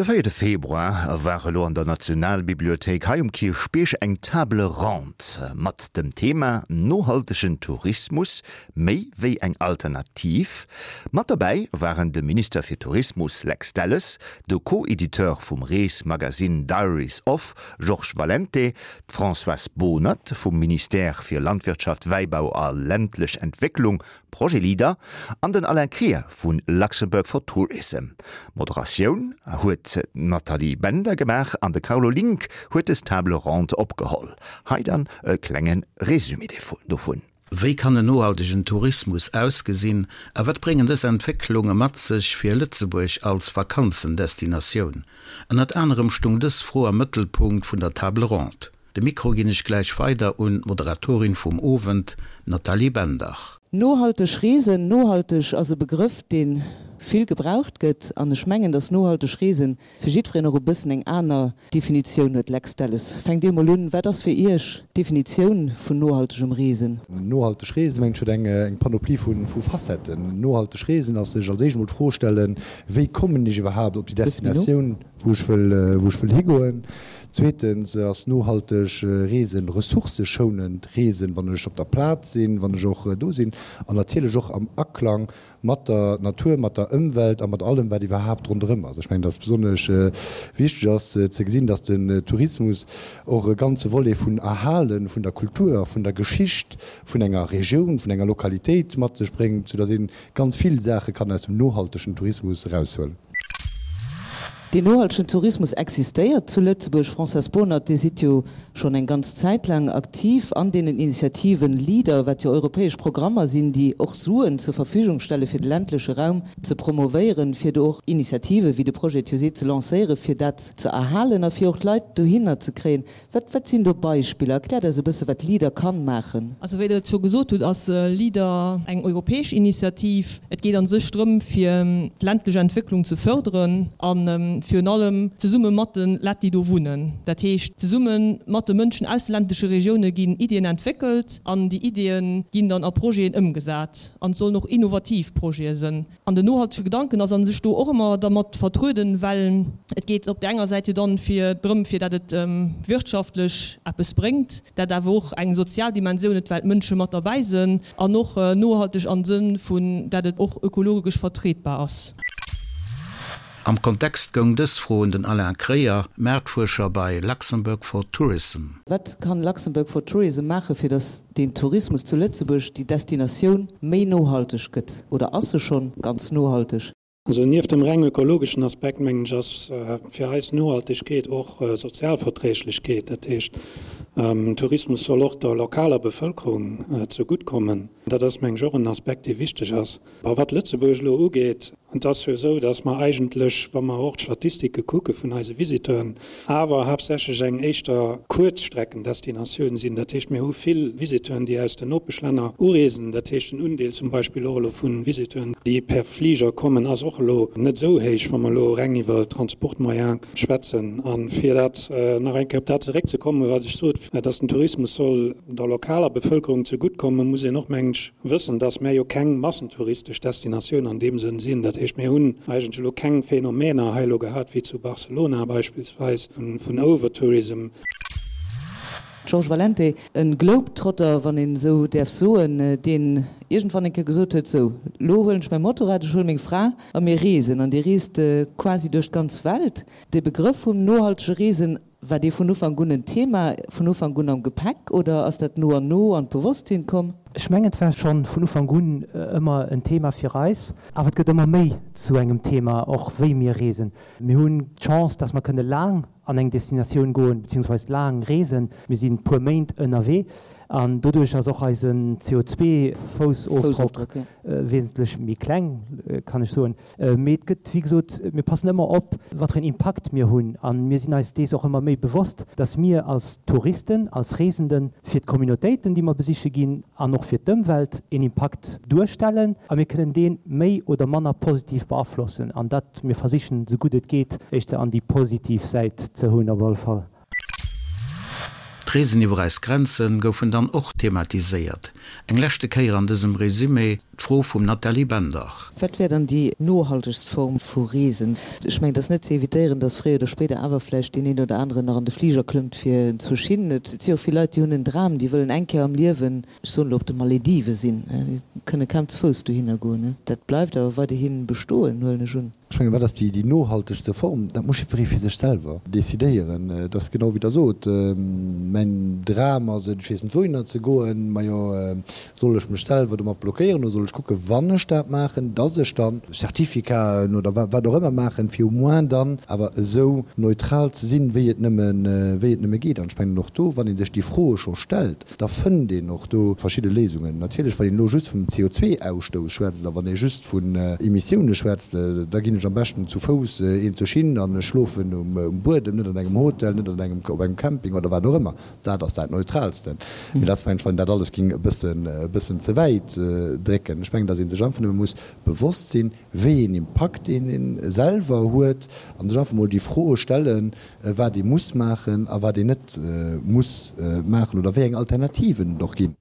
De véierte Februar war elo an der Nationalbibliothéik hei um Kierchbierg eng Table ronde mat dem Thema Nohaltegen Tourismus, méi wéi eng Alternativ. Mat derbäi waren de Minister fir Tourismus Lex Delles, de Co-Editeur vum Reesmagasinn Diaries Of Georges Valente, d'Françoise Bohnert vum Ministère fir Landwirtschaft, Wäibau a ländlech Entwécklung, Projet Leader, an den Alain Krier vu Luxembourg for Tourism. D'Moderatioun huet d'Nathalie Bender gemaach an de Carlo Link huet des Table ronde opgeholl. Hei dann e klenge Résumé dovun. Wéi kann en nohaltegen Tourismus ausgesinn a wat bréngen dës Entwécklunge mat sech fir Lëtzebuerg als Vakanzendestinatioun? Ënnert anerem stung dës Fro am Mëttelpunkt vun der Table ronde. De Mikro ginn ech gläich weider un d'Moderatorin vum Owend, d'Nathalie Bender. Nohalteg Reesen, Nohalteg ass e Begrëff, dee vill gebraucht gëtt an ech mengen, dass nohalteg Reesen fir jiddwereen och e bëssen eng aner Definitioun huet. Lex Delles, fänkt Dir mol un, Wat ass fir Iech d'Definitioun vun nohaltegem Reesen? Nohalteg Reesen, mengen ech, huet eng Panoplie vu Facetten. Nohalteg Reesen ass sech als éischt emol d'Fro stellen, Wéi kommen ech iwwerhaapt op déi Destinatioun, wou ech wëll higoen? Zweetens ass nohalteg Reesen ressourcëschounend Reesen, wann ech op der Plaz sinn, wann ech och do sinn an natierlech och am Aklang mat der Natur, mat der Ëmwelt a mat allem, wat iwwerhaapt ronderëm ass. Ech mengen, dass besonnesch wichteg ass ze gesinn, dass den Tourismus och e ganze Volet vun Erhale vun der Kultur a vun der Geschicht vun enger Regioun, vun enger Lokalitéit mat sech bréngt, soudass ee ganz vill Saache kann aus dem nohaltegen Tourismus eraushuelen. Deen nohaltegen Tourismus existéiert zu Lëtzebuerg. Françoise Bohnert, Dir sidd jo schonn eng ganz Zäit laang aktiv an deenen Initiativen Leader, wat jo europäesch Programmer sinn, déi och Suen zur Verfügung stelle fir de ländleche Raum ze promovéieren, fir do och Initiative wéi de Projet TUSE ze lancéieren, fir dat ze erhalen a fir och d'Leit dohinner ze kréien. Wat, wat sinn do Beispiller? Erkläert eis e bësse wat Leader kann maachen. Also wéi Der et scho gesot hutt, ass Leader eng europäesch Initiativ. Et geet a sech drëm, fir d'ländlech Entwécklung ze förderen a virun allem zesumme mat de Lett, déi do wunnen. Dat heescht, zesumme mat de Mënschen aus de ländleche Regioune ginn Iddien entwéckelt an déi Iddie ginn dann a Projeten ëmgesat. An et sollen och innovativ Projete sënn. An den nohaltege Gedanken ass a sech do och ëmmer dermat vertrueden, well et geet op där enger Säit jo dann fir drëm, fir dat et wirtschaftlech eppes bréngt, dat awer och eng sozial Dimensioun huet, well d'Mënsche mat derbäi sënn, an och nohalteg am Sënn vun dat et och ökologesch vertretbar ass. Am Kontext goung dës Fro un den Alain Kreyer, Maartfuerscher bei Luxembourg for Tourism. Wat kann Luxembourg for Tourism maachen, fir datt den Tourismus zu Lëtzebuerg, déi Destinatioun, méi nohalteg gëtt? Oder ass se schonn ganz nohalteg? Also nieft dem reng ökologeschen Aspekt, mengen ech, ass fir eis Nohaltegkeet och Sozialverträglechkeet. Dat heescht, Tourismus soll och der lokaler Bevëlkerung zegutt kommen. Dat ass, mengen ech, och en Aspekt, dee wichteg ass. A wat Lëtzebuerg elo ugeet, et ass jo esou, datt mer eigentlech, wa mer och d'Statistike kucke vun eise Visiteuren, awer haaptsächlech eng éischter Kuerzstreckendestinatioun sinn. Dat heescht, mir hu vill Visiteuren, déi aus den Nopeschlänner ureesen. Dat heescht, den Undeel zum Beispill och elo vu Visiteuren, déi per Fliger kommen, ass och elo net esou héich, wa mer elo reng iwwer Transportmoyen schwätzen. A fir dat nach eng Kéier op dat zeréckzekommen, wat ech sot, datt den Tourismus soll der lokaler Bevëlkerung zeguttkommen, muss een och, mengen ech, wëssen, dass mär jo keng massentouristesch Destinatioun an deem Sënn sinn. Dat heescht, mir hunn eigentlech elo keng Phänomener hei elo gehat wéi zu Barcelona beispillsweis vun Overtourism. Georges Valente, e Globetrotter, wann een esou däerf soen, deen iergendwann eng Kéier gesot huet, Sou, lo huelen ech mäi Motorrad, ech huele meng Fra a mir reesen. An Dir reest quasi duerch d'ganz Welt. De Begrëff vum nohaltege Reesen War dee vun Ufank un en Thema, vun Ufank un am Gepäck oder ass dat no an no an d'Bewosstsinn komm? Ech mengen, et war schonn vun Ufank un ëmmer en Thema fir eis, awer et gëtt ëmmer méi zu engem Thema, och wéi mir reesen. Mir hunn d'Chance, dass mer kënne laang an eng Destinatioun goen, beziehungsweise laang reesen. Mir sinn puer Méint ënnerwee an doduerch ass och eisen CO2-Foussofdrock wesentlech méi kleng, kann ech soen. Mee et gëtt, wéi gesot, mir passen ëmmer op, wat fir een Impakt mir hunn. A mir sinn eis dees och ëmmer méi bewosst, dass mir als Touristen, als Reesenden fir d'Communautéiten, déi mer besiche ginn, an och fir d'Ëmwelt een Impakt duerstellen. A mir kënnen dee méi oder manner positiv beaflossen. An dat, mir versichen, esou gutt et geet, éischter an déi positiv Säit ze hunn op alle Fall. D'Reesen iwwer eis Grenze goufen dann och thematiséiert. Eng leschte Kéier an dësem Resumé d'Fro vum Nathalie Bender. Wat wär dann déi nohaltegst Form vu Reesen? Ech mengen, et ass net ze evitéieren, dass fréier oder spéider awer vläicht deen een oder aneren nach an de Fliger klëmmt fir zu hin. Et si och vill Leit, déi hunn en Dram, déi wëllen eng Kéier am Liewen, ech soen elo, op de Maledive sinn. Déi kënne kaum ze Fouss dohinner goen. Dat bleift awer weiderhi bestoen, huelen ech un. Ech mengen, wat ass déi nohaltegste Form? Dat muss jiddweree fir sech selwer decidéieren. Et ass genau wéi Der sot, mäin Dram ass et, ech weess net wouhinner ze goen. Majo, soll ech mech selwer domat blockéieren oder soll ech kucken, wann ech dat maachen, dass ech dann Certificaten oder wat och ëmmer maachen, fir au moins dann awer esou neutral ze sinn, wéi et nëmme, wéi et nëmme geet. An ech mengen och do, wann ee sech déi Froe scho stellt, Da fënnt een och do verschidde Léisungen. Natierlech, wann een elo just vum CO2-Ausstouss schwätzt a wann ee just vun Emissioune schwätzt, da ginn ech am beschten zu Fouss een zur Schinn an ech schlofen um Buedem, net an engem Hotel, net an engem, op engem Camping oder wat och ëmmer. Dat ass dat Neutraalsten. Mee dat ass, mengen ech, wann een dat alles géing e bëssen, e bëssen ze wäit drécken. Ech mengen, datt ee sech einfach nëmme muss bewosst sinn, wéi een Impakt een een selwer huet an sech einfach mol déi Froe stellen, wat ee muss maachen a wat een net muss maachen oder wéi eng Alternativen et och ginn.